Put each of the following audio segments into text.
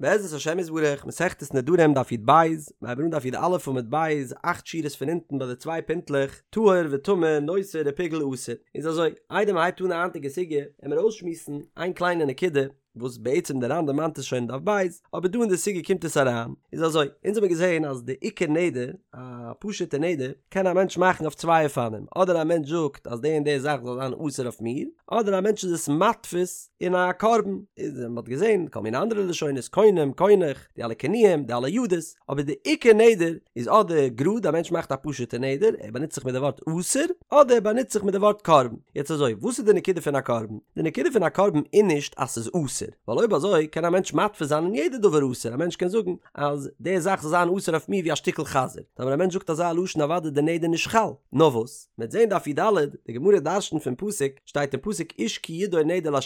בעזרת השם יתברך, מסכת נדרים דף י"ב, מיר הייבן אן דף י"א עמוד ב', אכט שורות פון אונטן ביי די צוויי פינטלעך, טהור וטמא, נותר ופיגול אסור. איז אזוי, איידער מען הייבט אן די היינטיגע סוגיא, עמיר אויסשמועסן איין קליינע נקודה, וואס בעצם דער ר"ן דערמאנט עס שוין אין דף ב', אבער דא אין די סוגיא קומט עס אריין, איז אזוי, אונז האמיר געזען אז די עיקר נדר, א פשוט'ע נדר, קען א מענטש מאכן אויף צוויי אופנים, אדער א מענטש זאגט אז די און די זאך זאל זיין אסור אויף מיר, אדער א מענטש איז עס מתפיס אין א קרבן, איז מען האט געזען כל מיני אנדערע לשונות, קונם, קונח, די אלע כינויים, די אלע ידות, אבער די עיקר נדר איז אדער גראד א מענטש מאכט א פשוט'ע נדר, ער באנוצט זיך מיט די ווארט אסור, אדער ער באנוצט זיך מיט די ווארט קרבן. יעצט אזוי, וואס איז די נקודה פון א קרבן? די נקודה פון א קרבן איז נישט אז ס'איז אסור, ווייל אויב אזוי קען א מענטש מתפיס זיין אין יעדע דבר אסור, א מענטש קען זאגן אז די זאך זאל זיין אסור אויף מיר ווי א שטיקל חזיר, טאמער א מענטש זאגט אזא לשון אוודאי די נדר נישט חל, נאר וואס? מ'וועט זען דף י"ד, די גמרא דרשנ'ט פון פסוק, שטייט אין פסוק איש כי ידור נדר לה',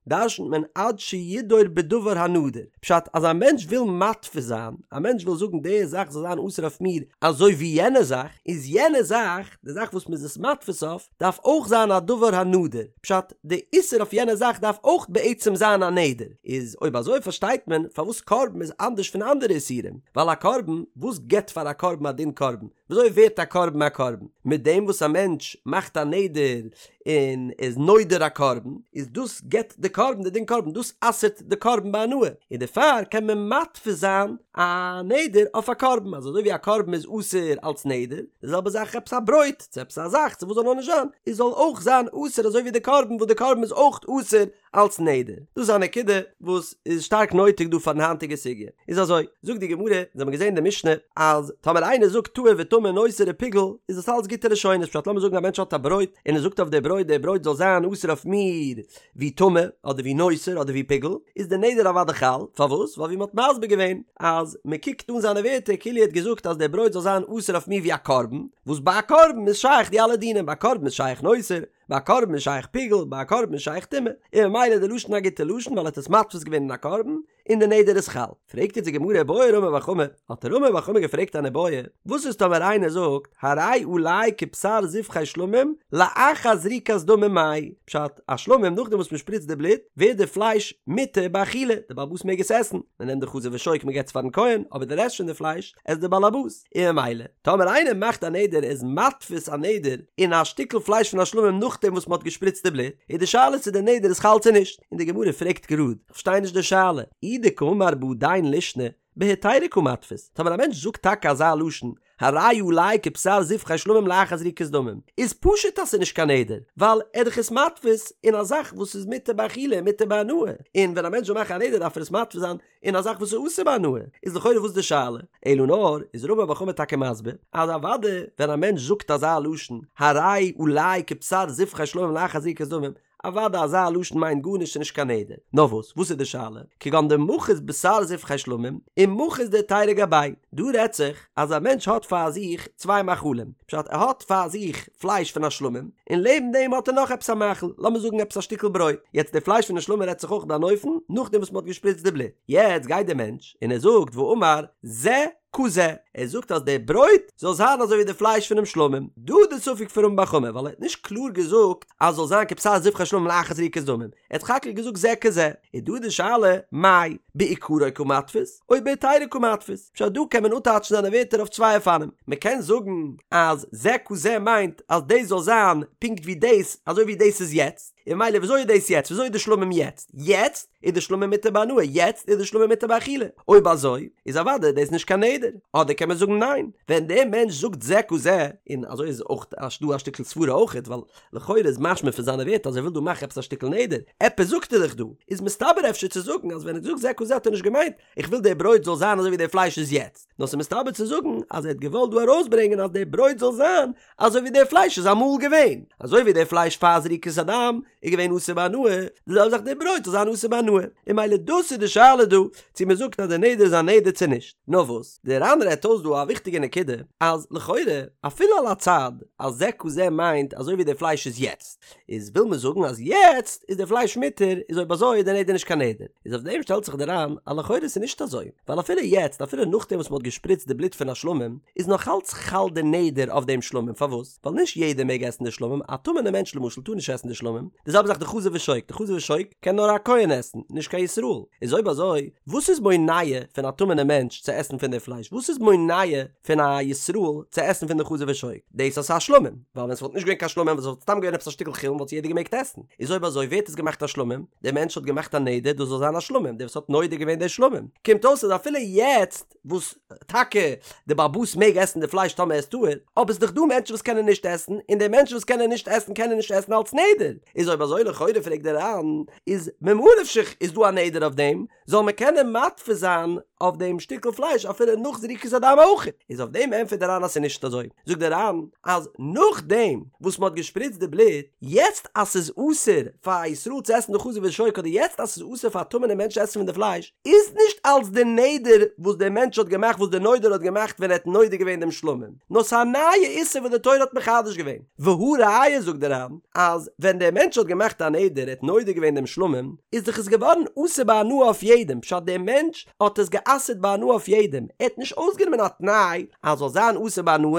דרשנ'ט מען עד שידור בדבר הנדור, פשט אז א מענטש וויל מתפיס זיין, א מענטש וויל זאגן די זאך זאל זיין אסור אויף מיר אזוי ווי יענע זאך, איז יענע זאך, די זאך וואס מ'איז עס מתפיס אויף, דארף אויך זיין א דבר הנדור, פשט, די איסור אויף יענע זאך דארף אויך בעצם זיין א נדר, איז אויב אזוי פארשטייט מען פארוואס קרבן איז אנדערש פון אנדערע איסורים, ווייל א קרבן, וואס גיבט פאר א קרבן א דין קרבן? וויאזוי ווערט א קרבן א קרבן? מיט דעם וואס א מענטש מאכט א נדר און איז נודר א קרבן, איז דאס גיבט די קרבן די דין קרבן, דאס אסר'ט די קרבן בהנאה, און דערפאר קען מען מתפיס זיין א נדר אויף א קרבן, אז אזוי ווי א קרבן איז אסור אלס נדר, די זעלבע זאך עפעס א ברויט, צו עפעס א זאך, צו וואס זאל נאר נישט זיין, איז זאל אויך זיין אסור אזוי ווי די קרבן, וואס די קרבן איז אויך אסור אלס נדר. דאס איז א נקודה וואס איז שטארק נויטיג דא פארן היינטיגע סוגיא. איז אזוי, זאגט די גמרא, אונז האבן געזען אין די משנה, אז טאמער איינער זאגט טהור וטמא נותר ופיגול, איז דאס אלץ גוטע לשונות, פשט לאמיר זאגן א מענטש האט א ברויט, און ער זאגט אויף די ברויט, די ברויט זאל זיין אסור אויף מיר ווי טמא, אדער ווי נותר, אדער ווי פיגול, איז די נדר אוודאי חל, פארוואס? ווייל ווי מען האט מסביר געווען, אז מען קוקט אן זיינע ווערטער כאילו ער האט געזאגט אז די ברויט זאל זיין אסור אויף מיר ווי א קרבן, וואס ביי א קרבן איז שייך די אלע דינים, ביי א קרבן איז שייך נותר, ביי א קרבן איז שייך פיגול, ביי א קרבן איז שייך טומאה, און ממילא איז די לשון א גוטע לשון ווייל ער האט עס מתפיס געווען אין א קרבן, און די נדר איז חל. פרעגט יעצט די גמרא בעי רמי בר חמא, האט רמי בר חמא געפרעגט אן איבעיא, וואס איז טאמער איינער זאגט הרי עלי כבשר זבחי שלמים לאחר זריקת דמים מאי, פשט, א שלמים נאכדעם וואס מען שפריצט די בלוט ווערט די פלייש מותר באכילה, די בעל הבית מעג עס עסן, מען נעמט די חזה ושוק מען געבט עס פארן כהן, אבער די רעשט פון די פלייש עסט די בעל הבית. און ממילא טאמער איינער מאכט א נדר ער איז מתפיס א נדר אין א שטיקל פלייש פון א שלמים נאכדעם וואס מען האט געשפריצט די בלוט, איז די שאלה צו די נדר איז חל צו נישט, און די גמרא פרעגט גראד, איך פארשטיי נישט די שאלה, אי דקאמר בהדין לישנא, בהיתירא קא מתפיס, טאמער א מענטש זאגט טאקע אזא לשון, הרי עלי כבשר זבחי שלמים לאחר זריקת דמים, איז פשוט אז ס'איז נישט קיין נדר, ווייל ער איז דאך עס מתפיס אין א זאך וואס איז מותר באכילה און מותר בהנאה, און ווען א מענטש זאל מאכן א נדר דארף ער עס מתפיס זיין אין א זאך וואס איז אסור בהנאה, איז לכאורה וואס די שאלה? אלא נאר, איז רמי בר חמא טאקע מסביר, אז אוודאי ווען א מענטש זאגט אזא לשון, הרי עלי כבשר זבחי שלמים לאחר זריקת דמים, אוודאי אזא לשון מיינט גארנישט ס'נישט קיין נדר. נאר וואס, וואס איז די שאלה? כגון דמחית בשר זבחי שלמים, ומחית דהיתירא גביה. דא רעדט זיך אז א מענטש האט פאר זיך צוויי מאכלים, פשט ער האט פאר זיך פלייש פון א שלמים, און לעבן דעם האט ער נאך עפעס א מאכל, לאמיר זאגן עפעס א שטיקל ברויט, יעצט די פלייש פון די שלמים רעדט זיך אויך ביי אן אופן נאכדעם וואס מען האט געשפריצט די בלוט, יעצט גייט דער מענטש און ער זאגט ואמר זה כזה, ער זאגט אז די ברויט זאל זיין אזוי ווי די פלייש פונעם שלמים, דא איז די ספק פון רמי בר חמא ווייל ער האט נישט קלאר געזאגט אז זאל זיין כבשר זבחי שלמים לאחר זריקת דמים, ער האט סך הכל געזאגט זה כזה, איז דא די שאלה מאי בעיקרו קא מתפיס או בהיתירא קא מתפיס, פשט דא קען מען אפטייטשן זיינע ווערטער אויף צוויי אופנים, מען קען זאגן אז זה כזה מיינט אז דאס זאל זיין פונקט ווי דאס אזוי ווי דאס איז יעצט, און ממילא וויאזוי איז דאס יעצט וויאזוי איז די שלמים יעצט, יעצט איז די שלמים מותר בהנאה יעצט איז די שלמים מותר באכילה, אויב אזוי איז אוודאי דאס נישט קיין נדר, אדער קען מען זאגן ניין, ווען דער מענטש זאגט זה כזה, און אזוי איז אויך דא א שטיקל סברה אויכעט ווייל לכאורה איז משמע פון זיינע ווערטער אז ער וויל דא מאכן עפעס א שטיקל נדר, עפעס זאגט ער דאך דא, איז מסתבר אפשר צו זאגן אז ווען ער האט געזאגט זה כזה האט ער נישט געמיינט איך וויל די ברויט זאל זיין אזוי ווי די פלייש איז יעצט, נאר ס'איז מסתבר צו זאגן אז ער האט געוואלט דא ארויסברענגען אז די ברויט זאל זיין אזוי ווי די פלייש איז אמאל געווען, אזוי ווי די פלייש פאר זריקת הדם איז געווען אסור בהנאה, די זעלבע זאך די ברויט זאל זיין אסור בהנאה, און ממילא דאס איז די שאלה דא, צו מען זאגט אז די נדר איז א נדר צו נישט. נאר וואס, דער ר"ן רעדט אויס דא א וויכטיגע נקודה, אז לכאורה, אפילו על הצד אז זה כזה מיינט אזוי ווי די פלייש איז יעצט, איז וויל מען זאגן אז יעצט איז די פלייש מותר, איז אויב אזוי איז די נדר נישט קיין נדר. איז אויף דעם שטעלט זיך דער ר"ן אז לכאורה איז נישט אזוי, ווייל אפילו יעצט, אפילו נאכדעם וואס מען האט געשפריצט די בלוט פון א שלמים, איז נאך אלץ חל די נדר אויף דעם שלמים, פארוואס? ווייל נישט יעדער מעג עסן די שלמים, א טמא'נע מענטש למשל טאר נישט עסן די שלמים, די. זעלבע זאך די חזה ושוק, די חזה ושוק קען נאר א כהן עסן, נישט קיין ישראל, איז אויב אזוי וואס איז מונע פון א טמא'נע מענטש צו עסן פון די פלייש, וואס איז מונע פון א ישראל צו עסן פון די חזה ושוק? דאס אז ס'איז א שלמים, ווייל ווען ס'וואלט נישט געווען קיין שלמים ווען ס'וואלט סתם געווען עפעס א שטיקל חולין וואלט עס יעדער געמעגט עסן, איז אויב אזוי ווער האט עס געמאכט א שלמים? דער מענטש האט געמאכט א נדר דאס זאל זיין א שלמים, דער וואס האט נודר געווען די שלמים, קומט אויס אז אפילו יעצט וואס טאקע די בעל הבית מעג עסן די פלייש טאמער ער איז טהור, אבער ס'איז דאך דא מענטשן וואס קענען נישט עסן, און די מענטשן וואס קענען נישט עסן קענען נישט עסן אלץ נדר, איז אויב אזוי לכאורה פרעגט דער ר"ן, איז ממה נפשך איז דא א נדר אויף דעם, זאל מען קענען מתפיס זיין אויף דעם שטיקל פלייש אפילו נאך זריקת הדם אויך, איז אויף דעם ענטפערט דער ר"ן אז ס'איז נישט אזוי, זאגט דער ר"ן אז נאכדעם וואס מ'האט געשפריצט די בלוט, יעצט אז ס'איז אסור פאר א ישראל צו עסן די חזה ושוק אדער יעצט אז ס'איז אסור פאר א טמא'נע מענטש צו עסן פון די פלייש, איז נישט אלץ די נדר וואס דער מענטש האט געמאכט וואס דער נודר האט געמאכט ווען ער האט נודר געווען דעם שלמים, נאר ס'איז א נייע איסור וואס די תורה האט מחדש געווען, והא ראיה זאגט דער ר"ן אז ווען דער מענטש האט געמאכט א נדר ער האט נודר געווען דעם שלמים איז דאך עס געווארן אסור בהנאה אויף יעדעם פשט דער מענטש האט עס גע'אסר'ט בהנאה אויף יעדעם ער האט נישט אויסגענומען א תנאי אז זאל זיין אסור בהנאה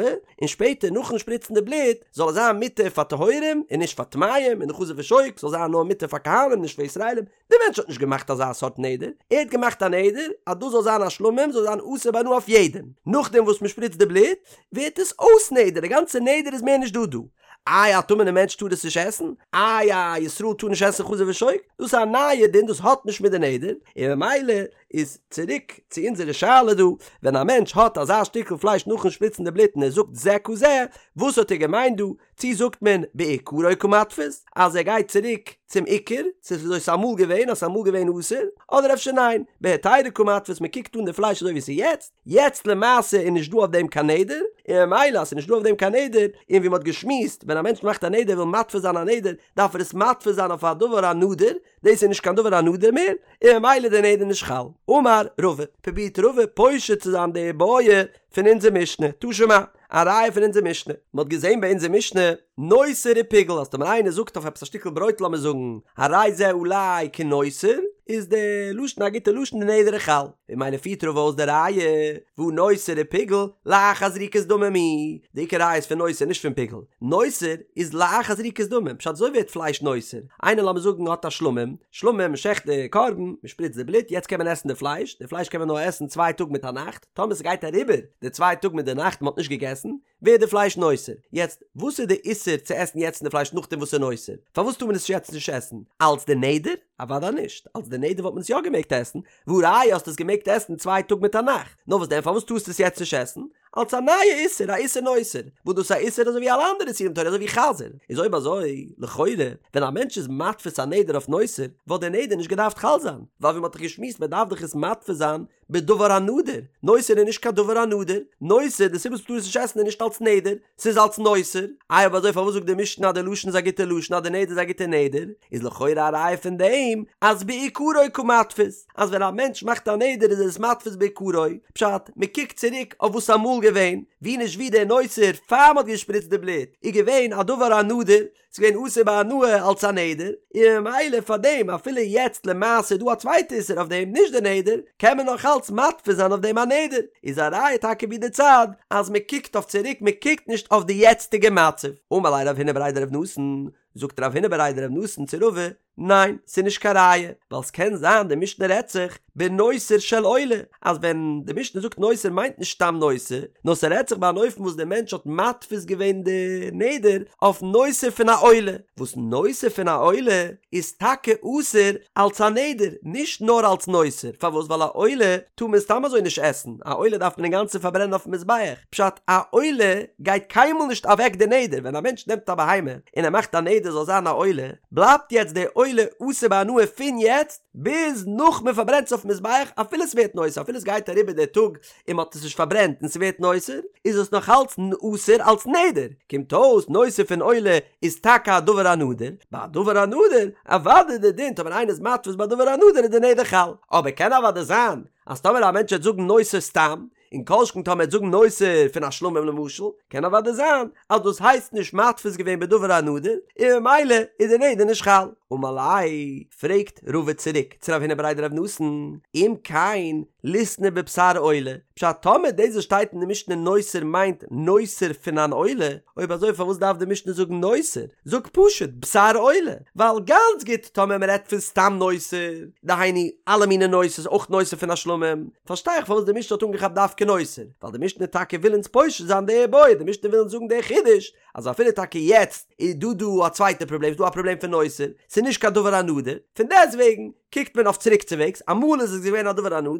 און שפעטער נאכן שפריצן די בלוט זאל עס זיין מותר פאר טהורים און נישט פאר טמאים און די חזה ושוק זאל זיין נאר מותר פאר כהנים נישט פאר ישראלים דער מענטש האט נישט געמאכט אזא סארט נדר, ער האט געמאכט א נדר אז דאס זאל זיין א שלמים, זאל זיין אסור בהנאה אויף יעדעם, נאכדעם וואס מען שפריצט די בלוט, ווערט עס אויס נדר, די גאנצע נדר איז מער נישט דא דא. איי א טמא'נע מענטש טאר עס נישט עסן? איי א ישראל טאר נישט עסן חזה ושוק? דאס איז א נייע דין, דאס האט נישט מיט די נדר, און ממילא איז צוריק צו אונזערע שאלה דא, ווען א מענטש האט אזא שטיקל פלייש נאכן שפריצן די בלוט און ער זאגט זה כזה, וואס האט ער געמיינט דא? צי זאגט מען בעיקרו קמתפיס אז ער גייט צוריק צום עיקר, ס'איז וויאזוי ס'איז אמאל געווען אז ס'איז אמאל געווען אסור, אדער אפשר ניין, בהיתירא קמתפיס מען קוקט אן די פלייש אזוי ווי ס'איז יעצט, יעצט למעשה איז נישט דא אויף דעם קיין נדר, און ממילא אז ס'איז נישט דא אויף דעם קיין נדר, און ווי מ'האט געשמועסט ווען א מענטש מאכט א נדר וויל מתפיס זיין א נדר דארף ער עס מתפיס זיין אויף א דבר הנדור, דאס איז נישט קיין דבר הנדור מער, און ממילא איז די נדר נישט חל. אמר רבא, פרובירט רבא פושט צו זיין די בעיא פון אונזער משנה, תא שמע, א ראיה פון אונזער משנה, מען האט געזען ביי אונזער משנה, נותר ופיגול, אז טאמער איינער זאגט אויף עפעס א שטיקל ברויט לאמיר זאגן, הרי זה עלי כנותר, איז די לשון א גוטע לשון די נדר איז חל, און ממילא פירט רבא אויס די ראיה, והא נותר ופיגול, לאחר זריקת דמים הוא, די עיקר ראיה איז פון נותר נישט פון פיגול, נותר איז לאחר זריקת דמים, פשט אזוי ווערט פלייש נותר, איינער לאמיר זאגן האט א שלמים, שלמים מען שעכט די קרבן, מען שפריצט די בלוט, יעצט קען מען עסן די פלייש, די פלייש קען מען נאר עסן צוויי טאג מיט א נאכט, טאמער ס'גייט אריבער די צוויי טאג מיט די נאכט מ'האט נישט געגעסן, ווערט די פלייש נותר. יעצט, וואס איז די איסור צו עסן יעצט די פלייש נאכדעם וואס ס'איז נותר? פארוואס טאר מען עס יעצט נישט עסן? אלץ די נדר? אוודאי נישט. אלץ די נדר וואלט מען עס יא געמעגט עסן, והא ראיה האסט עס געמעגט עסן צוויי טאג מיט א נאכט. נאר וואס דען פארוואס טארסטו עס יעצט נישט עסן? אלץ א נייע איסור, א איסור נותר. וואס דאס איז א איסור אזוי ווי אלע אנדערע איסורים תורה אזוי ווי חזיר. איז אויב אזוי, לכאורה, ווען א מענטש איז מתפיס א נדר אויף נותר, וואלט דער נדר נישט געדארפט חל זיין. ווייל ווי מ'האט דאך געשמועסט מ'דארף דאך עס מתפיס זיין בדבר הנדור, נותר איז נישט קיין דבר הנדור, נותר, די סיבה וואס מ'טאר עס נישט עסן איז נישט אלס נדר, ס'איז אלס נותר, איי אויב אזוי פארוואס זאגט די משנה אז די לשון איז א גוטע לשון אז די נדר איז א גוטע נדר, איז לכאורה א ראיה פון דעם אז בעיקרו קמתפיס, אז ווען א מענטש מאכט א נדר איז ער עס מתפיס בעיקרו, פשט, מ'קוקט צוריק אויף וואס אמאל געווען, ווי נישט ווי דער נותר פאר מ'האט געשפריצט די בלוט איז געווען א דבר הנדור, ס'איז געווען אסור בהנאה אלס א נדר, און ממילא פאר דעם אפילו יעצט למעשה איז דא א צווייטע איסור אויף דעם נישט די נדר, קען מען נאך אלץ מתפיס זיין אויף דעם א נדר, איז א ראיה טאקע ווי די צד אז מען קוקט אויף צוריק מען קוקט נישט אויף די יעצטיגע מצב. אמר ליה רב הונא בריה דרב נתן, זאגט רב הונא בריה דרב נתן צו רבא, ניין, ס'איז נישט קיין ראיה, ווייל ס'קען זיין די משנה רעדט זיך בנותר של עולה, אז ווען די משנה זאגט נותר מיינט נישט סתם נותר, נאר ס'רעדט זיך ביי אן אופן וואס דער מענטש האט מתפיס געווען די נדר אויף נותר פון א עולה, וואס נותר פון א עולה איז טאקע אסור אלס א נדר, נישט נאר אלס נותר, פארוואס ווייל א עולה טאר מען סתם אזוי נישט עסן, א עולה דארף מען אינגאנצן פארברענען אויפן מזבח, פשט א עולה גייט קיינמאל נישט אוועק די נדר, ווען א מענטש נעמט א בהמה און ער מאכט א נדר זאל זיין א עולה, בלייבט יעצט די עולה אסור בהנאה פון יעצט ביז נאך מען פארברענט עס אויפן מזבח אפילו ס'ווערט נותר אפילו ס'גייט אריבער דער טאג און מ'האט עס נישט פארברענט און ס'ווערט נותר איז עס נאך אלץ אסור אלץ נדר קומט אויס נותר פון עולה איז טאקע א דבר הנדור ביי א דבר הנדור אוודאי די דין טאמער איינער איז מתפיס ביי דבר הנדור איז די נדר חל אבער קען אוודאי זיין אז טאמער א מענטש וועט זאגן נותר סתם און כל שכן טאמער ער וועט זאגן נותר פון א שלמים למשל, קען אוודאי זיין אז דאס הייסט נישט מתפיס געווען בדבר הנדור, און ממילא איז די נדר נישט חל. אמר ליה, פרעגט רבא צוריק צו רב הונא בריה דרב נתן, אם כן, ליתני בבשר עולה, פשט טאמער דאס וואס שטייט אין די משנה נותר מיינט נותר פון אן עולה, אויב אזוי פארוואס דארף די משנה זאגן נותר? זאג פשוט בשר עולה, ווייל גאנץ גוט טאמער מען רעדט פון סתם נותר, דהיינו אלע מיני נותר'ס אויך נותר פון א שלמים, פארשטיי איך פארוואס די משנה האט אנגעכאפט דווקא נותר, ווייל די משנה טאקע וויל אונז פושט זיין די בעיא, די משנה וויל אונז זאגן די חידוש, אז אפילו טאקע יעצט איז דא דא א צווייטע פראבלעם, ס'איז דא א פראבלעם פון נותר, ס'איז נישט קיין דבר הנדור, פון דעסטוועגן קוקט מען אויף צוריקצווועגס, אמאל איז עס געווען א דבר הנדור,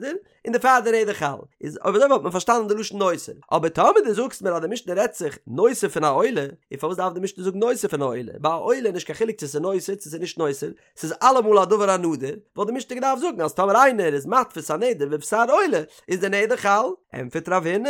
און דערפאר די נדר חל, איז אויב אזוי וואלט מען פארשטאנען די לשון נותר, אבער טאמער דו זאגסט מיר אז די משנה רעדט זיך נותר פון א עולה, און פארוואס דארף די משנה זאגן נותר פון א עולה, ביי א עולה איז נישט קיין חילוק צו ס'איז נותר צו ס'איז נישט נותר, ס'איז אלעמאל א דבר הנדור, וואלט די משנה געדארפט זאגן אז טאמער איינער איז מתפיס א נדר בבשר עולה איז די נדר חל, ענטפערט רב הונא,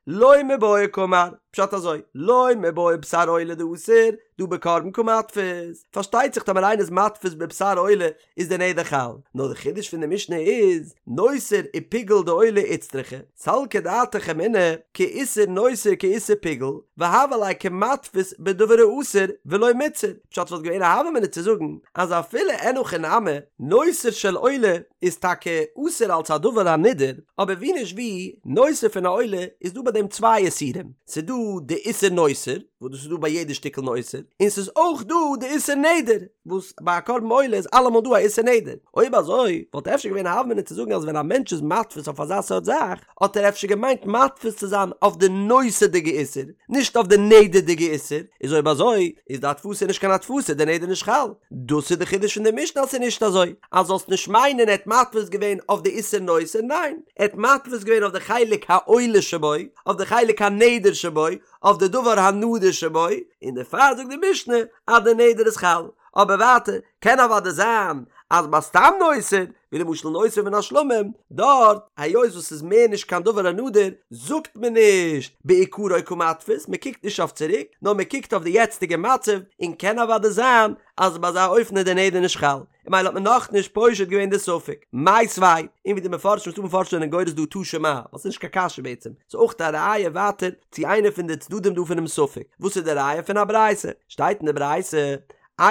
לא מיבעיא קאמר, פשט אזוי, לא מיבעיא בשר עולה דאסור, דהא בקרבן קא מתפיס, פארשטייט זיך טאמער איינער איז מתפיס בבשר עולה איז די נדר חל, נאר די חידוש פון די משנה איז, נותר ופיגול דעולה איצטריכא, סלקא דעתך אמינא, כאיסור נותר כאיסור פיגול, והוה ליה כמתפיס בדבר האסור ולא מיתסר, פשט וואלט געווען א הוה אמינא צו זאגן אז אפילו אין הכי נמי, נותר של עולה איז טאקע אסור אלס א דבר הנידור, אבער ווי נישט ווי, נותר פון א עולה איז דא ביי דעם צוויי איסורים, ס'איז דא די איסור נותר, וואס דאס איז דא ביי יעדע שטיקל נותר, און ס'איז אויך דא די איסור נדר, וואס ביי א קרבן עולה איז אלעמאל דא א איסור נדר. אויב אזוי, וואלט אפשר געווען א הוה אמינא צו זאגן אז ווען א מענטש איז מתפיס אויף אזא סארט זאך, האט ער אפשר געמיינט מתפיס צו זיין אויף די נותר'דיגע איסור, נישט אויף די נדר'דיגע איסור, איז אויב אזוי, איז די התפסה נישט קיין התפסה, די נדר נישט חל. דאס איז די חידוש פון די משנה אז ס'איז נישט אזוי, אז זאלסט נישט מיינען ער האט מתפיס געווען אויף די איסור נותר, ניין, ער האט מתפיס געווען אויף די חלק העולה שבו, אויף די חלק הנדר שבו, אויף די דבר הנדור שבו, און דערפאר זאגט די משנה אז די נדר איז חל, אבער ווייטער קען אוודאי זיין אז ביי סתם נותר, ווי למשל נותר מן השלמים, דארט היות וואס ס'איז מער נישט קיין דבר הנדור, זאגט מען נישט בעיקרו קא מתפיס, מען קוקט נישט אויף צוריק, נאר מען קוקט אויף די יעצטיגע מצב, און קען אוודאי זיין אז ביי אזא אופן איז די נדר נישט חל. און ממילא האט מען נאכנישט פושט געווען די ספק. מיתיבי, און ווי די מפרשים ס'דא מפרשים זענען גורס דא תא שמע, ווייל ס'איז נישט קיין קשיא בעצם, ס'איז אויך א ראיה ווייטער צו איינע פון די צדדים דא פונעם ספק. וואס איז די ראיה פון א ברייתא? שטייט אין די ברייתא,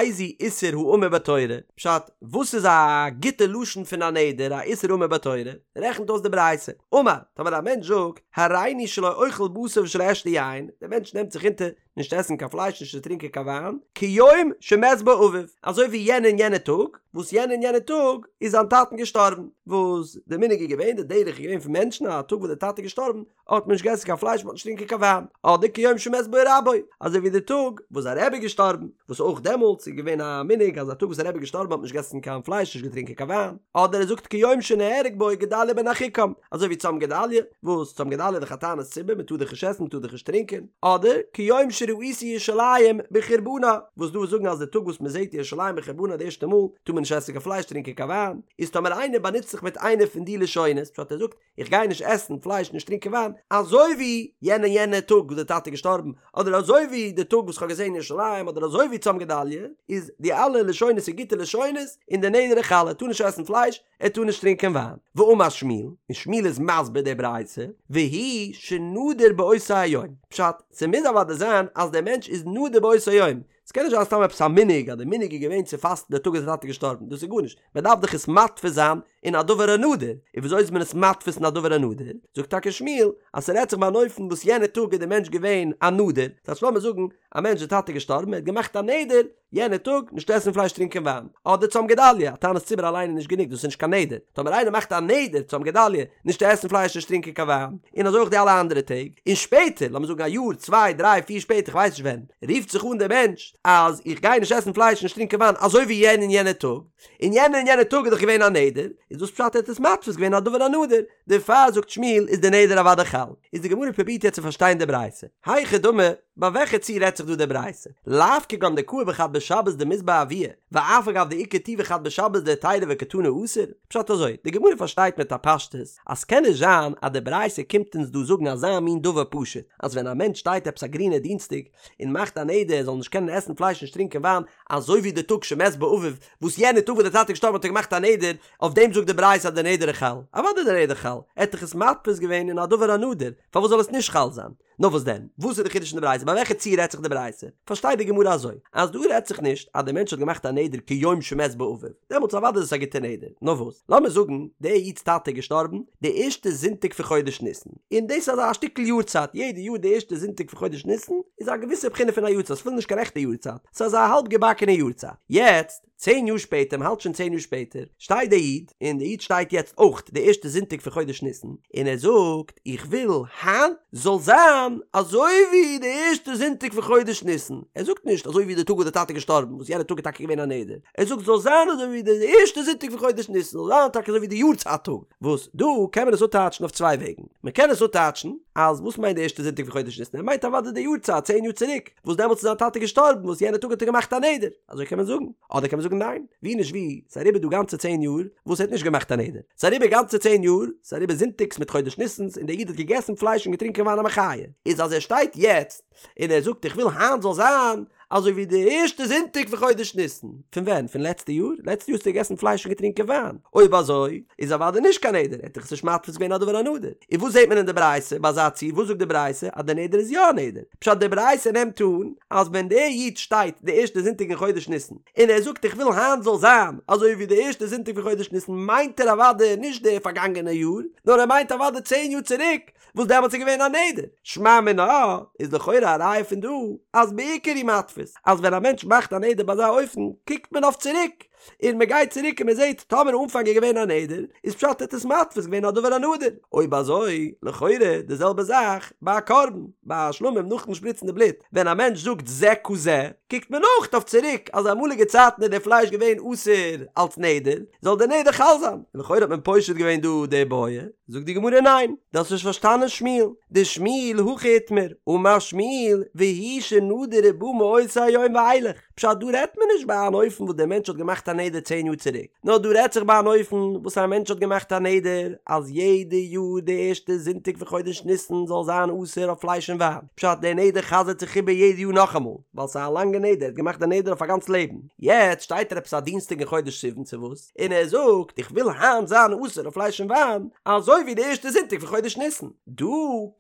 איזהו איסור האמור בתורה, פשט, וואס איז א גוטע לשון פון א נדר, א איסור האמור בתורה? רעכנט אויס די ברייתא, אמר, טאמער א מענטש זאגט, הריני שלא אוכל בשר ושלא אשתה יין, דער מענטש נעמט זיך אונטער, נישט עסן קיין פלייש נישט צו טרינקען קיין וויין, כיום שמת בו אביו, אזוי ווי יענע און יענע טאג, וואס יענע און יענע טאג איז זיין טאטן געשטארבן, וואס די מנהג איז געווען, די דרך איז געווען פון מענטשן אז א טאג וואס די טאטע איז געשטארבן האט מען נישט געעסן קיין פלייש מען האט נישט געטרינקען קיין וויין, אדער כיום שמת בו רבו, אזוי ווי די טאג וואס זיין רבי איז געשטארבן, וואס אויך דעמאלטס איז געווען א מנהג אז א טאג וואס א רבי איז געשטארבן האט מען נישט געעסן קיין פלייש נישט געטרינקען קיין וויין, אדער ער זאגט כיום שנהרג בו גדליה בן אחיקם, אזוי ווי צום גדליה, וואס צום גדליה איז דאך א תענית ציבור מען טאר דאך נישט עסן מען טאר דאך נישט טרינקען, אדער כיום שראיתי ירושלים בחורבנה, וואס דא זאגן אז די טאג וואס מען זעט ירושלים בחורבנה די ערשטע מאל טאר מען נישט עסן קיין פלייש טרינקען קיין וויין, איז טאמער איינער באנוצט זיך מיט איינע פון די לשונות, פשט ער זאגט איך גיי נישט עסן פלייש נישט טרינקען וויין, אזוי ווי יענע יענע טאג וואס די טאטע איז געשטארבן, אדער אזוי ווי די טאג וואס כ'האב געזען ירושלים, אדער אזוי ווי צום גדליה, איז די אלע לשונות איז גוטע לשונות, און די נדר איז חל, ער טאר נישט עסן פלייש, ער טאר נישט טרינקען וויין. ואמר שמואל, און שמואל איז מסביר די ברייתא, והוא שנדר באותו היום, פשט, ס'מוז אוודאי זיין אז דער מענטש איז נדר באותו היום, ס'קען נישט זיין סתם עפעס א מנהג אז די מנהג איז געווען צו פאסטן די טאג וואס די טאטע איז געשטארבן, דאס איז גארנישט, מען דארף דאך עס מתפיס זיין אין א דבר הנדור, און וויאזוי איז מען עס מתפיס אין א דבר הנדור? זאגט טאקע שמואל אז ס'רעדט זיך ביי אן אופן וואס יענע טאג איז די מענטש געווען א נדור, דאס הייסט לאמיר זאגן א מענטש די טאטע איז געשטארבן ער האט געמאכט א נדר יענע טאג נישט עסן פלייש טרינקען וויין, אדער צום גדליה, א תענית ציבור אליין איז נישט גענוג דאס איז נישט קיין נדר, טאמער איינער מאכט א נדר צום גדליה נישט צו עסן פלייש נישט טרינקען קיין וויין, און אזוי אויך די אלע אנדערע טעג, און שפעטער לאמיר זאגן א יאר צוויי דריי פיר שפעטער כ'ווייס נישט ווען, רופט זיך אן דער מענטש אז איך גיי נישט עסן פלייש נישט טרינקען וויין אזוי ווי יענע און יענע טאג, און יענע און יענע טאג איז דאך געווען א נדר, איז דאס פשט ער האט עס מתפיס געווען א דבר הנדור, דערפאר זאגט שמואל איז די נדר אוודאי חל. איז די גמרא פרובירט יעצט צו פארשטיין די ברייתא. היכי דמי, ביי וועלכע ציור רעדט זיך דא די ברייתא? לאו כגון דקאי בחד בשבת דמית ביה אבוה, ואף על גב דאיכא טובא חד בשבת דהיתירא וקתני אסור? פשט אזוי, די גמרא פארשטייט מיט א פשטות אז ס'קען נישט זיין אז די ברייתא קומט אונז דא זאגן אזא מין דבר פשוט, אז ווען א מענטש שטייט עפעס א גרינע דינסטאג און מאכט א נדר ער זאל נישט קענען עסן פלייש נישט טרינקען וויין, אזוי ווי די טאג שמת בו אביו, וואס יענע טאג וואס די טאטע איז געשטארבן האט ער געמאכט א נדר, אויף דעם זאגט זאגט די ברייתא אז די נדר איז חל? אוודאי די נדר חל, ער האט דאך עס מתפיס געווען אין א דבר הנדור, פארוואס זאל עס נישט חל זיין? נאר וואס דען? וואס איז די חידוש אין די ברייתא? ביי וועלכע ציור רעדט זיך די ברייתא? פארשטייט די גמרא אזוי, אז דא רעדט זיך נישט אז דער מענטש האט געמאכט א נדר כיום שמת בו אביו, דעמאלטס אוודאי איז עס א גוטע נדר, נאר וואס? לאמיר זאגן דער איד'ס טאטע איז געשטארבן די ערשטע זונטאג פון חודש ניסן, און דאס איז אזא שטיקל יארצייט, יעדע יאר די ערשטע זונטאג פון חודש ניסן איז א געוויסע בחינה פון א יארצייט, ס'איז אפילו נישט קיין רעכטע יארצייט, ס'איז אזא האלב געבאקענע יארצייט. יעצט, צען יאר שפעטער, מ'האלט שוין צען יאר שפעטער, שטייט דער איד, און דער איד שטייט יעצט אויך די ערשטע זונטאג פון חודש ניסן, און ער זאגט, איך וויל היינט זאל זיין אזוי ווי די ערשטע זונטאג פון חודש ניסן, ער זאגט נישט אזוי ווי די טאג וואס די טאטע איז געשטארבן, וואס יענע טאג איז טאקע געווען א נדר, ער זאגט זאל זיין אזוי ווי די ערשטע זונטאג פון חודש ניסן, זאל זיין טאקע אזוי ווי די יארצייט טאג, וואס דא קען מען עס אפטייטשן אויף צוויי וועגן, מען קען עס אפטייטשן אז וואס מיינט די ערשטע זונטאג פון חודש ניסן, ער מיינט אוודאי די יארצייט צען יאר צוריק, וואס דעמאלטס איז זיין טאטע געשטארבן, וואס יענע טאג האט ער געמאכט א נדר, אזוי קען מען זאגן, אדער קען מען זאגן ניין, ווי נישט ווי, ס'איז אריבער דא גאנצע צען יאר וואס ער האט נישט געמאכט א נדר, ס'איז אריבער גאנצע צען יאר, ס'איז אריבער זונטאגס מיט חודש ניסנ'ס און דער איד האט געגעסן פלייש און געטרינקען וויין א מחיה, איז אז ער שטייט יעצט און ער זאגט איך וויל היינט זאל זיין אזוי ווי די ערשטע זונטאג פון חודש ניסן, פון ווען? פון לעצטע יאר? לעצטע יאר האסטו געגעסן פלייש און געטרינקען וויין, אויב אזוי איז אוודאי נישט קיין נדר, ער האט דאך עס נישט מתפיס געווען א דבר הנדור, און וואס זעט מען אין די ברייתא ביי אזא ציור, וואס זאגט די ברייתא אז די נדר איז יא א נדר? פשט די ברייתא נעמט אן אז ווען דער איד שטייט די ערשטע זונטאג אין חודש ניסן און ער זאגט איך וויל היינט זאל זיין אזוי ווי די ערשטע זונטאג פון חודש ניסן מיינט ער אוודאי נישט די פארגאנגענע יאר נאר ער מיינט אוודאי צען יאר צוריק וואס דעמאלטס איז געווען א נדר. שמע מינה איז לכאורה א ראיה פון דא אז בעיקר הוא מתפיס אז ווען א מענטש מאכט א נדר ביי אזא אופן קוקט מען אויף צוריק און מען גייט צוריק און מען זעט טאמער אנפאנג איז געווען א נדר, איז פשט ער האט עס מתפיס געווען א דבר הנדור, אויב אזוי לכאורה די זעלבע זאך ביי א קרבן, ביי א שלמים נאכן שפריצן די בלוט, ווען א מענטש זאגט זה כזה, קוקט מען אויך אויף צוריק אז אמאליגע צייטן איז די פלייש געווען אסור אלס נדר, זאל די נדר חל זיין, און לכאורה האט מען פושט געווען דא די בעיא, זאגט די גמרא ניין, דו האסט נישט פארשטאנען שמואל, דשמואל הכי איתמר, אמר שמואל, והוא שנדר ובא מאותו היום ואילך. פשט דא רעדט מען נישט ביי אן אופן וואס דער מענטש האט געמאכט א נדר צען יאר צוריק, נאר דא רעדט זיך ביי אן אופן וואס א מענטש האט געמאכט א נדר אז יעדע יאר די ערשטע זונטאג פון חודש ניסן זאל זיין אסור אויף פלייש און וויין, פשט דער נדר חזר'ט זיך איבער יעדע יאר נאכאמאל, ווייל ס'איז א לאנגע נדר, ער האט געמאכט די נדר אויף א גאנץ לעבן, יעצט שטייט ער עפעס א דינסטאג אין חודש סיוון צו וואס, און ער זאגט איך וויל היינט זיין אסור אויף פלייש און וויין, אזוי ווי די ערשטע זונטאג פון חודש ניסן. דא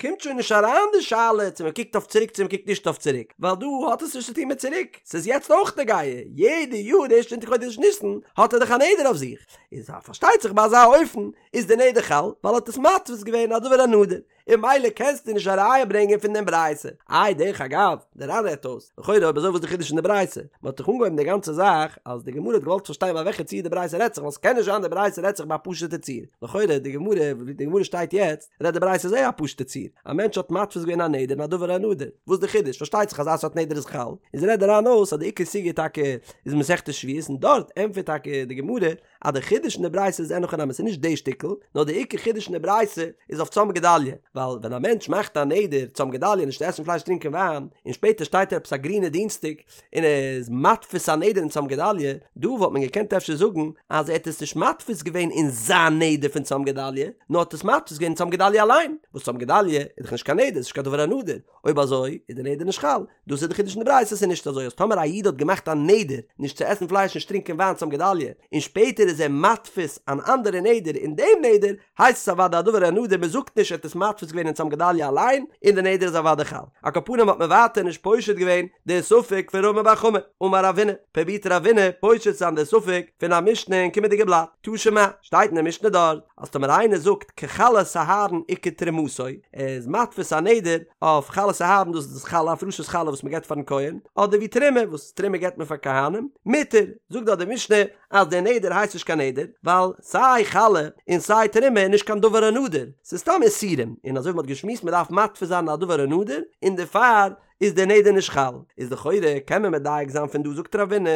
קומט שוין נישט אריין די שאלה צו מען קוקט אויף צוריק צו מען קוקט נישט אויף צוריק, ווייל דא האט עס נישט צו טון מיט צוריק, ס'איז יעצט אויך נוגע, יעדע יאר די ערשטע זונטאג חודש ניסן האט ער דאך א נדר אויף זיך, איז פארשטייט זיך ביי אזא אופן איז די נדר חל, ווייל ער האט עס מתפיס געווען א דבר הנדור, און ממילא קענסטו נישט א ראיה ברענגען פון דעם ברייתא. איי דרך אגב, דער ר"ן רעדט אויס, לכאורה אויב אזוי וואס איז די חידוש אין די ברייתא? מען האט דאך אנגעהויבן די גאנצע זאך אז די גמרא האט געוואלט פארשטיין ביי וועלכע ציור די ברייתא רעדט זיך ווייל ס'קען נישט זיין די ברייתא רעדט זיך ביי א פשוט'ע ציור, לכאורה די גמרא ווי די גמרא שטייט יעצט רעדט די ברייתא זייער א פשוט'ע ציור, א מענטש האט מתפיס געווען א נדר אין א דבר הנדור, וואס די חידוש? פארשטייט זיך אז אזא סארט נדר איז חל, איז רעדט די ר"ן אויס אז די עיקר סוגיא טאקע איז מסכת שבועות און דארט ענטפערט טאקע די גמרא אז די חידוש אין די ברייתא איז אין הכי נמי ס'איז נישט די שטיקל, נאר די עיקר חידוש אין די ברייתא איז אויף צום גדליה, ווייל ווען א מענטש מאכט א נדר צום גדליה נישט צו עסן פלייש טרינקען וויין, און שפעטער שטייט ער עפעס א גרינע דינסטאג און ער איז מתפיס א נדר אין צום גדליה, דא וואלט מען געקענט אפשר זאגן אז ער האט עס נישט מתפיס געווען אין זיין נדר פון צום גדליה, נאר האט עס מתפיס געווען אין צום גדליה אליין, וואס צום גדליה איז דאך נישט קיין נדר, ס'איז נישט קיין דבר הנדור, אויב אזוי איז די נדר נישט חל, דאס איז די חידוש אין די ברייתא, ס'איז נישט אזוי אז טאמער א איד האט געמאכט א נדר נישט צו עסן פלייש נישט טרינקען וויין צום גדליה, און שפעטער איז ער מתפיס אן אנדערע נדר אין דעם נדר, הייסט עס אוודאי א דבר הנדור, מען זאגט נישט ער האט עס מתפיס געווען אין צום גדליה אליין, און די נדר איז אוודאי חל. על כל פנים האט מען ווייטער נישט פושט געווען די ספק פון רמי בר חמא, אמר רבינא, פרובירט רבינא פושט זיין די ספק פון א משנה אין קומענדיגע בלאט, תא שמע, שטייט אין די משנה דארט, אז טאמער איינער זאגט כחלת אהרן וכתרומתו, ער איז מתפיס א נדר אויף חלת אהרן דאס איז דאס חלה הפרשת חלה וואס מען געבט פארן כהן, אדער ווי תרומה וואס תרומה געבט מען פאר כהנים, מותר, זאגט דארט די משנה אז דער נדר הייסט נישט קיין נדר, ווייל סיי חלה און סיי תרומה איז נישט קיין דבר הנדור, ס'איז סתם איסורים, און אזוי ווי מ'האט געשמועסט מ'דארף מתפיס זיין א דבר הנדור, און דערפאר איז דער נדר נישט חל, איז לכאורה קען מען מדייק זיין פון דא זאגט רבינא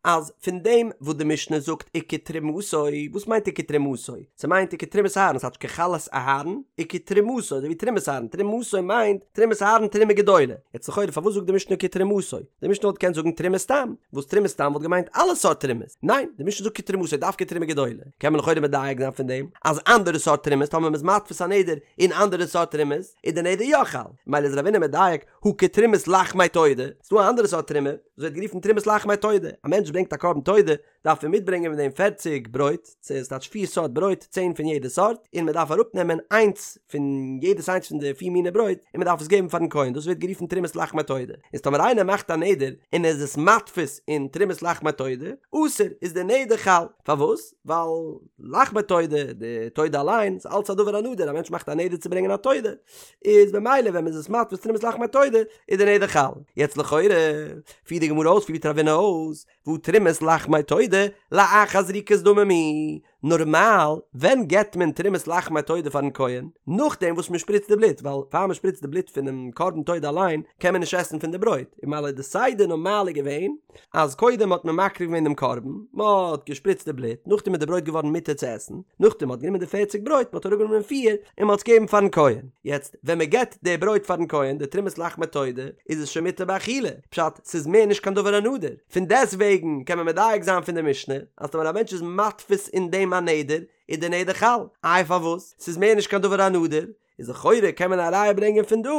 אז פון דעם וואס די משנה זאגט וכתרומתו, וואס מיינט וכתרומתו? ס'מיינט וכתרומת אהרן, ס'טייטש כחלת אהרן וכתרומתו, אזוי ווי תרומת אהרן, תרומתו מיינט תרומת אהרן תרומה גדולה, יעצט לכאורה פארוואס זאגט די משנה כתרומתו? די משנה וואלט געקענט זאגן תרומה סתם, וואס תרומה סתם וואלט געמיינט אלע סארט תרומות, ניין, די משנה זאגט כתרומתו דווקא תרומה גדולה, קען מען לכאורה מדייק זיין פון דעם אז אנדערע סארט תרומות טאמער מ'איז מתפיס א נדר אין אנדערע סארט תרומות איז די נדר יא חל, ממילא איז רבינא מדייק הא כתרומת לחמי תודה, ס'דא א אנדערע סארט תרומה וואס ווערט גערופן תרומת לחמי תודה, א מענטש ברענגט א קרבן תודה, דארף ער מיטברענגען מיט דעם פערציג ברויט, ס'טייטש פיר סארט ברויט, צען פון יעדע סארט, און מען דארף אראפנעמען איינס פון יעדעס איינס פון די פיר מיני ברויט, און מען דארף עס געבן פארן כהן, דאס ווערט גערופן תרומת לחמי תודה. איז טאמער איינער מאכט א נדר און ער איז עס מתפיס אין תרומת לחמי תודה, אסור, איז די נדר חל. פארוואס? ווייל לחמי תודה, די תודה אליין, איז אלץ א דבר הנדור, א מענטש מאכט א נדר צו ברענגען א תודה, איז במילא ווען מען איז עס מתפיס תרומת לחמי תודה, איז די נדר חל. יעצט לכאורה, פירט די גמרא אויס, פירט רבינא אויס, והא תרומת לחמי תודה לאחר זריקת דמים היא, נארמאל ווען געבט מען תרומת לחמי תודה פארן כהן? נאכדעם וואס מען שפריצט די בלוט, ווייל פאר מען שפריצט די בלוט פונעם קרבן תודה אליין קען מען נישט עסן פון די ברויט, און ממילא די סדר נארמאל איז געווען אז קודם האט מען מקריב געווען דעם קרבן, מען האט געשפריצט די בלוט, נאכדעם איז די ברויט געווארן מותר צו עסן, נאכדעם מען האט גענומען די פערציג ברויט, מען האט אראפגענומען פיר און מען האט עס געגעבן פארן כהן. יעצט ווען מען געבט די ברויט פארן כהן, די תרומת לחמי תודה, איז עס שוין מותר באכילה, פשט, ס'איז מער נישט קיין דבר הנדור. פון דעסט וועגן קען מען מדייק זיין פון די משנה, אז טאמער א מענטש איז מתפיס אין דעם א נדר, איז די נדר חל. איי פארוואס? ס'איז מער נישט קיין דבר הנדור. איז לכאורה קען מען א ראיה ברענגען פון דא,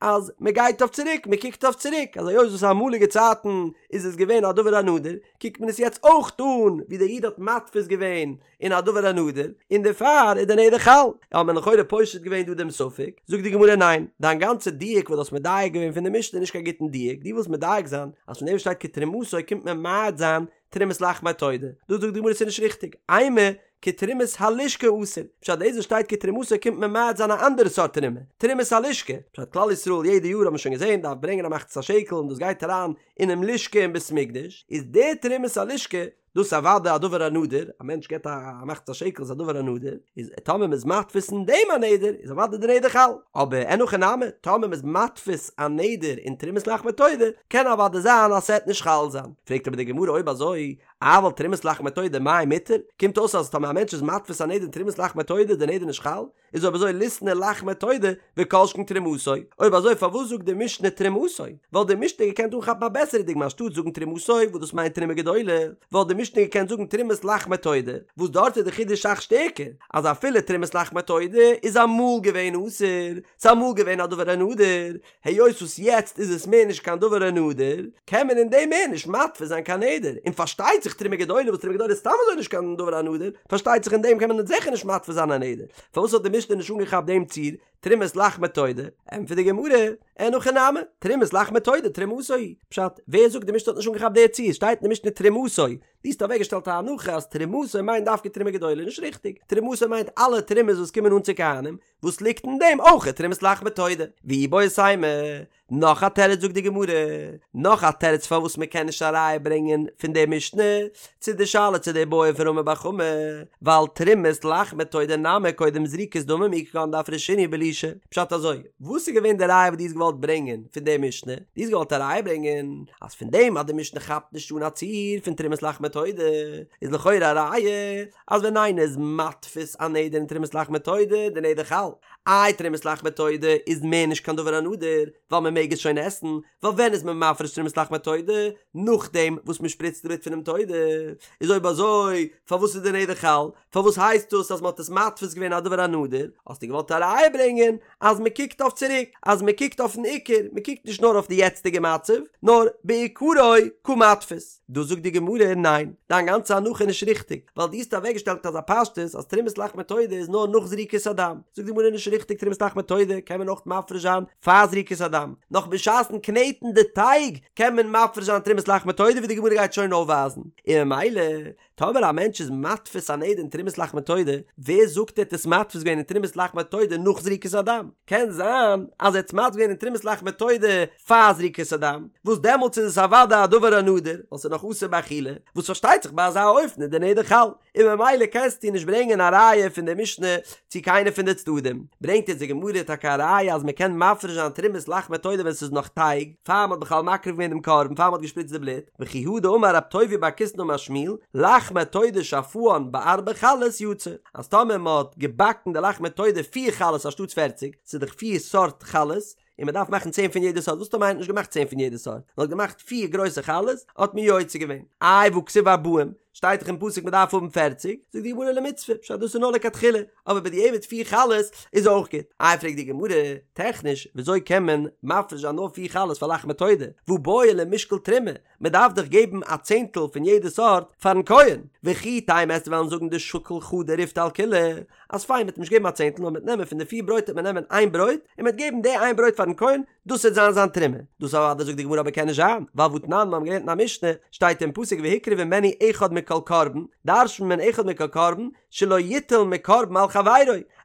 אז מען גייט אויף צוריק, מען קוקט אויף צוריק, אז היות וואס אמאליגע צייטן איז עס געווען א דבר הנדור, קוקט מען עס יעצט אויך אן ווי דער איד האט מתפיס געווען אין א דבר הנדור, און דערפאר איז די נדר חל. האט מען לכאורה פושט געווען דא דעם ספק, זאגט די גמרא ניין, דיין גאנצע דיוק וואס דו האסט מדייק געווען פון די משנה איז נישט קיין גוטן דיוק, דו ווילסט מדייק זיין אז פון דעם וואס שטייט כתרומתו קומט מען ממעט זיין תרומת לחמי תודה, דא זאגט די גמרא ס'איז נישט ריכטיג, אימא כתרומת הלשכה אסור, פשט דאס וואס שטייט כתרומתו קומט מען ממעט זיין א אנדערע סארט תרומה, תרומת הלשכה, פשט כלל ישראל יעדע יאר האט מען שוין געזען דארף ברענגען א מחצית השקל און דאס גייט אריין אינעם לשכה אין בית מקדש, איז די תרומת הלשכה דאס איז אוודאי א דבר הנדור, א מענטש געבט א מחצית השקל איז א דבר הנדור, איז טאמער מ'איז מתפיס אין דעם א נדר איז אוודאי די נדר חל, אבער אין הכי נמי, טאמער מ'איז מתפיס א נדר אין תרומת לחמי תודה, קען אוודאי זיין אז ס'עט נישט חל זיין. פרעגט אבער די גמרא אויב אזוי, אבל תרומת לחמי תודה מאי מותר? קומט אויס אז טאמער א מענטש איז מתפיס א נדר אין תרומת לחמי תודה איז די נדר נישט חל? איז אויב אזוי ליתני לחמי תודה וכל שכן תרומתו, אויב אזוי פארוואס זאגט די משנה תרומתו? וואלט די משנה געקענט אנכאפן א בעסערע דוגמא אנשטאט זאגן תרומתו וואס דאס מיינט תרומה גדולה, וואלט די משנה געקענט זאגן תרומת לחמי תודה וואס דארט איז די חידוש אסאך שטערקער אז אפילו תרומת לחמי תודה איז אמאל געווען אסור, ס'איז אמאל געווען א דבר הנדור, היות וואס יעצט איז עס מער נישט קיין דבר הנדור, קען מען אין דעם מער נישט מתפיס זיין קיין נדר, און פארשטייט זיך תרומה גדולה וואס תרומה גדולה איז סתם אזוי נישט קיין דבר הנדור, פארשטייט זיך אין דעם קען מען זיכער נישט מתפיס זיין א נדר, פארוואס האט די משנה נישט אנגעכאפט דעם ציור, תרומת לחמי תודה? ענטפערט די גמרא, אין הכי נמי, תרומת לחמי תודה תרומתו היא, פשט, ווער זאגט די משנה האט נישט אנגעכאפט די ציור, שטייט אין די משנה תרומתו, דו האסט אוועקגעשטעלט א הנחה אז תרומתו מיינט דווקא תרומה גדולה, נישט ריכטיג, תרומתו מיינט אלע תרומות וואס קומען אן צו כהנים, וואס ליגט אין דעם אויך תרומת לחמי תודה? ואיבעית אימא, נאך א תירוץ זאגט די גמרא, נאך א תירוץ פארוואס מען קען נישט א ראיה ברענגען פון די משנה צו די שאלה צו די בעיא פון רמי בר חמא, ווייל תרומת לחמי תודה נמי קודם זריקת דמים היא כגון דאפרשינהו בלישה, פשט אזוי, וואס איז געווען די ראיה וואס דו האסט געוואלט ברענגען פון די משנה? דו האסט געוואלט א ראיה ברענגען אז פון דעם אז די משנה כאפט נישט אן א ציור פון תרומת לחמי תודה איז לכאורה א ראיה אז ווען איינער איז מתפיס א נדר אין תרומת לחמי תודה, די נדר חל. איי תרומת לחמי תודה איז מער נישט קיין דבר הנדור, ווייל מען מעג עס שוין עסן, ווייל ווען איז מען מפריש תרומת לחמי תודה? נאכדעם וואס מען שפריצט די בלוט פונעם תודה. איז אויב אזוי פארוואס איז די נדר חל? פארוואס הייסט דאס אז מען האט עס מתפיס געווען א דבר הנדור? האסטו געוואלט א ראיה ברענגען אז מען קוקט אויף צוריק, אז מען קוקט אויפן עיקר, מען קוקט נישט נאר אויף די יעצטיגע מצב, נאר בעיקרו קא מתפיס. דא זאגט די גמרא, ניין, דיין גאנצע הנחה איז נישט ריכטיג, ווייל דו האסט אוועקגעשטעלט אזא פשטות אז תרומת לחמי תודה איז נאר נאך זריקת הדם. זאגט די גמרא נישט ריכטיג תרומת לחמי תודה קען מען אויך מפריש זיין פאר זריקת הדם, נאך בשעת'ן קנעטן די טייג קען מען מפריש זיין תרומת לחמי תודה ווי די גמרא גייט שוין אויפווייזן, און ממילא טאמער א מענטש איז מתפיס א נדר אין תרומת לחמי תודה, ווער זאגט ער האט עס מתפיס געווען אין תרומת לחמי תודה נאך זריקת הדם? קען זיין אז ער האט עס מתפיס געווען אין תרומת לחמי תודה פאר זריקת הדם, וואס דעמאלטס איז עס אוודאי א דבר הנדור, ווייל ס'איז נאך אסור באכילה, וואס פארשטייט זיך ביי אזא אופן איז די נדר חל, און ממילא קענסטו נישט ברענגען א ראיה פון די משנה צו קיינע פון די צדדים. ברענגט אונז די גמרא טאקע א ראיה אז מ'קען מפריש זיין תרומת לחמי תודה ווען ס'איז נאך טייג, פאר מ'האט בכלל מקריב געווען דעם קרבן, פאר מ'האט געשפריצט די בלוט, וכי הא דאמר רב טובי' בר קיסנא אמר שמואל, לחמי תודה שאפאן בארבע חלות יצא, אז טאמער מ'האט געבאקן די לחמי תודה פיר חלות אנשטאטס פערציג, ס'איז דאך פיר סארט חלות, און מ'דארף מאכן צען פון יעדע סארט, וואס טאמער איינער האט נישט געמאכט צען פון יעדע סארט, נאר האט געמאכט פיר גרויסע חלות, האט מען יוצא געווען. איי והכתיב ארבעים? שטייט דאך אין פסוק מען דארף האבן פערציג, זאגט די גמרא למצוה, פשט דאס איז נאר לכתחילה, אבער בדיעבד פיר חלות איז אויך גוט. איי פרעגט די גמרא, טעכניש וויאזוי קען מען מפריש זיין נאר פיר חלות פאר לחמי תודה, והא בעי למשקל תרומה, מען דארף דאך געבן א צענטל פון יעדע סארט פארן כהן, וכי תימא וועסטו וועלן זאגן דשקיל חדא ריפתא על כולהו, אז פיין מ'וועט נישט געבן א צענטל נאר מ'וועט נעמען פון די פיר ברויט וועט מען נעמען איין ברויט און מ'וועט געבן די איין ברויט פארן כהן, דאס וועט זיין זיין תרומה. דאס אוודאי זאגט די גמרא אבער קען נישט זיין, ווייל והתנן מיר האבן געלערנט אין א משנה, שטייט אין פסוק והקריב ממנו אחד מכל קרבן, דרש'נט מען אחד מכל קרבן, שלא יטול מקרבן על חברו,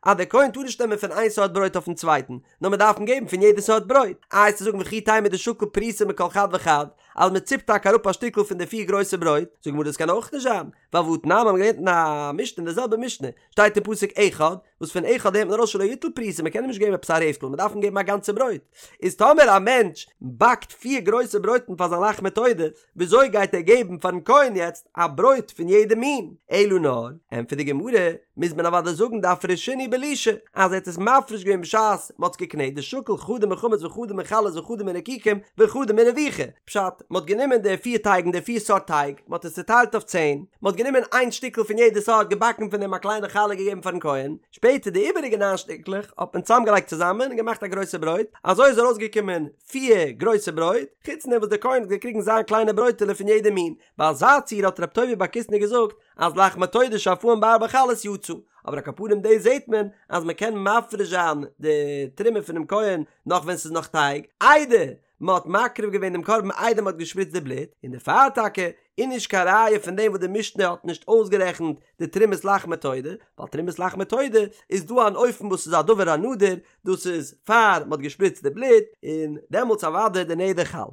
אז דער כהן טאר נישט נעמען פון איין סארט ברויט אויפן צווייטן, נאר מען דארף אים געבן פון יעדע סארט ברויט. איי וועסטו זאגן וכי תימא דשקיל פרוסה מכל חד וחד, אז מען ציפט טאקע אראפ א שטיקל פון די פיר גרויסע ברויט, זאגט די גמרא דאס קען אויך נישט זיין, ווייל והתנן מיר האבן געלערנט אין א משנה אין די זעלבע משנה, שטייט אין פסוק אחד, וואס פון אחד לערנט מען ארויס שלא יטול פרוסה, מען קען אים נישט געבן עפעס א רעפטל, מען דארף אים געבן א גאנצע ברויט. איז טאמער א מענטש באקט פיר גרויסע ברויטן פאר זיין לחמי תודה, וויאזוי גייט ער געבן פארן כהן יעצט א ברויט פון יעדע מין? אלא נאר, ענטפערט די גמרא, מוז מען אוודאי זאגן דאפרשינהו בלישה, אז ער האט עס מפריש געווען בשעת מען האט עס געקנעט, דשקיל חדא מחמץ וחדא מחלות וחדא מרקיקים וחדא מרביכה, פשט, מען האט גענומען די פיר טייגן, די פיר סארט טייג, מען האט עס צוטיילט אויף צען, מען האט גענומען איין שטיקל פון יעדע סארט, געבאקן פון דעם א קליינע חלה געגעבן פארן כהן, שפעטער די איבעריגע ניין שטיקלעך האט מען צוזאמגעלייגט צוזאמען און געמאכט א גרויסע ברויט, אזוי איז ארויסגעקומען פיר גרויסע ברויט, חוץ דעם וואס דער כהן האט געקריגן זיין קליינע ברויטעלע פון יעדע מין, ביי אזא ציור האט רב טובי' בר קיסנא געזאגט אז לחמי תודה שאפאן בארבע חלות יצא, אבער על כל פנים דאס זעט מען אז מען קען מפריש זיין די תרומה פונעם כהן נאך ווען ס'איז נאך טייג, איידער מען האט מקריב געווען דעם קרבן איידער מען האט געשפריצט די בלוט, און דערפאר טאקע איז נישט קיין ראיה פון דעם וואס די משנה האט נישט אויסגערעכנט די תרומת לחמי תודה, ווייל תרומת לחמי תודה איז דא אן אופן וואס איז א דבר הנדור, דאס איז פאר מען האט געשפריצט די בלוט, און דעמאלטס אוודאי די נדר חל.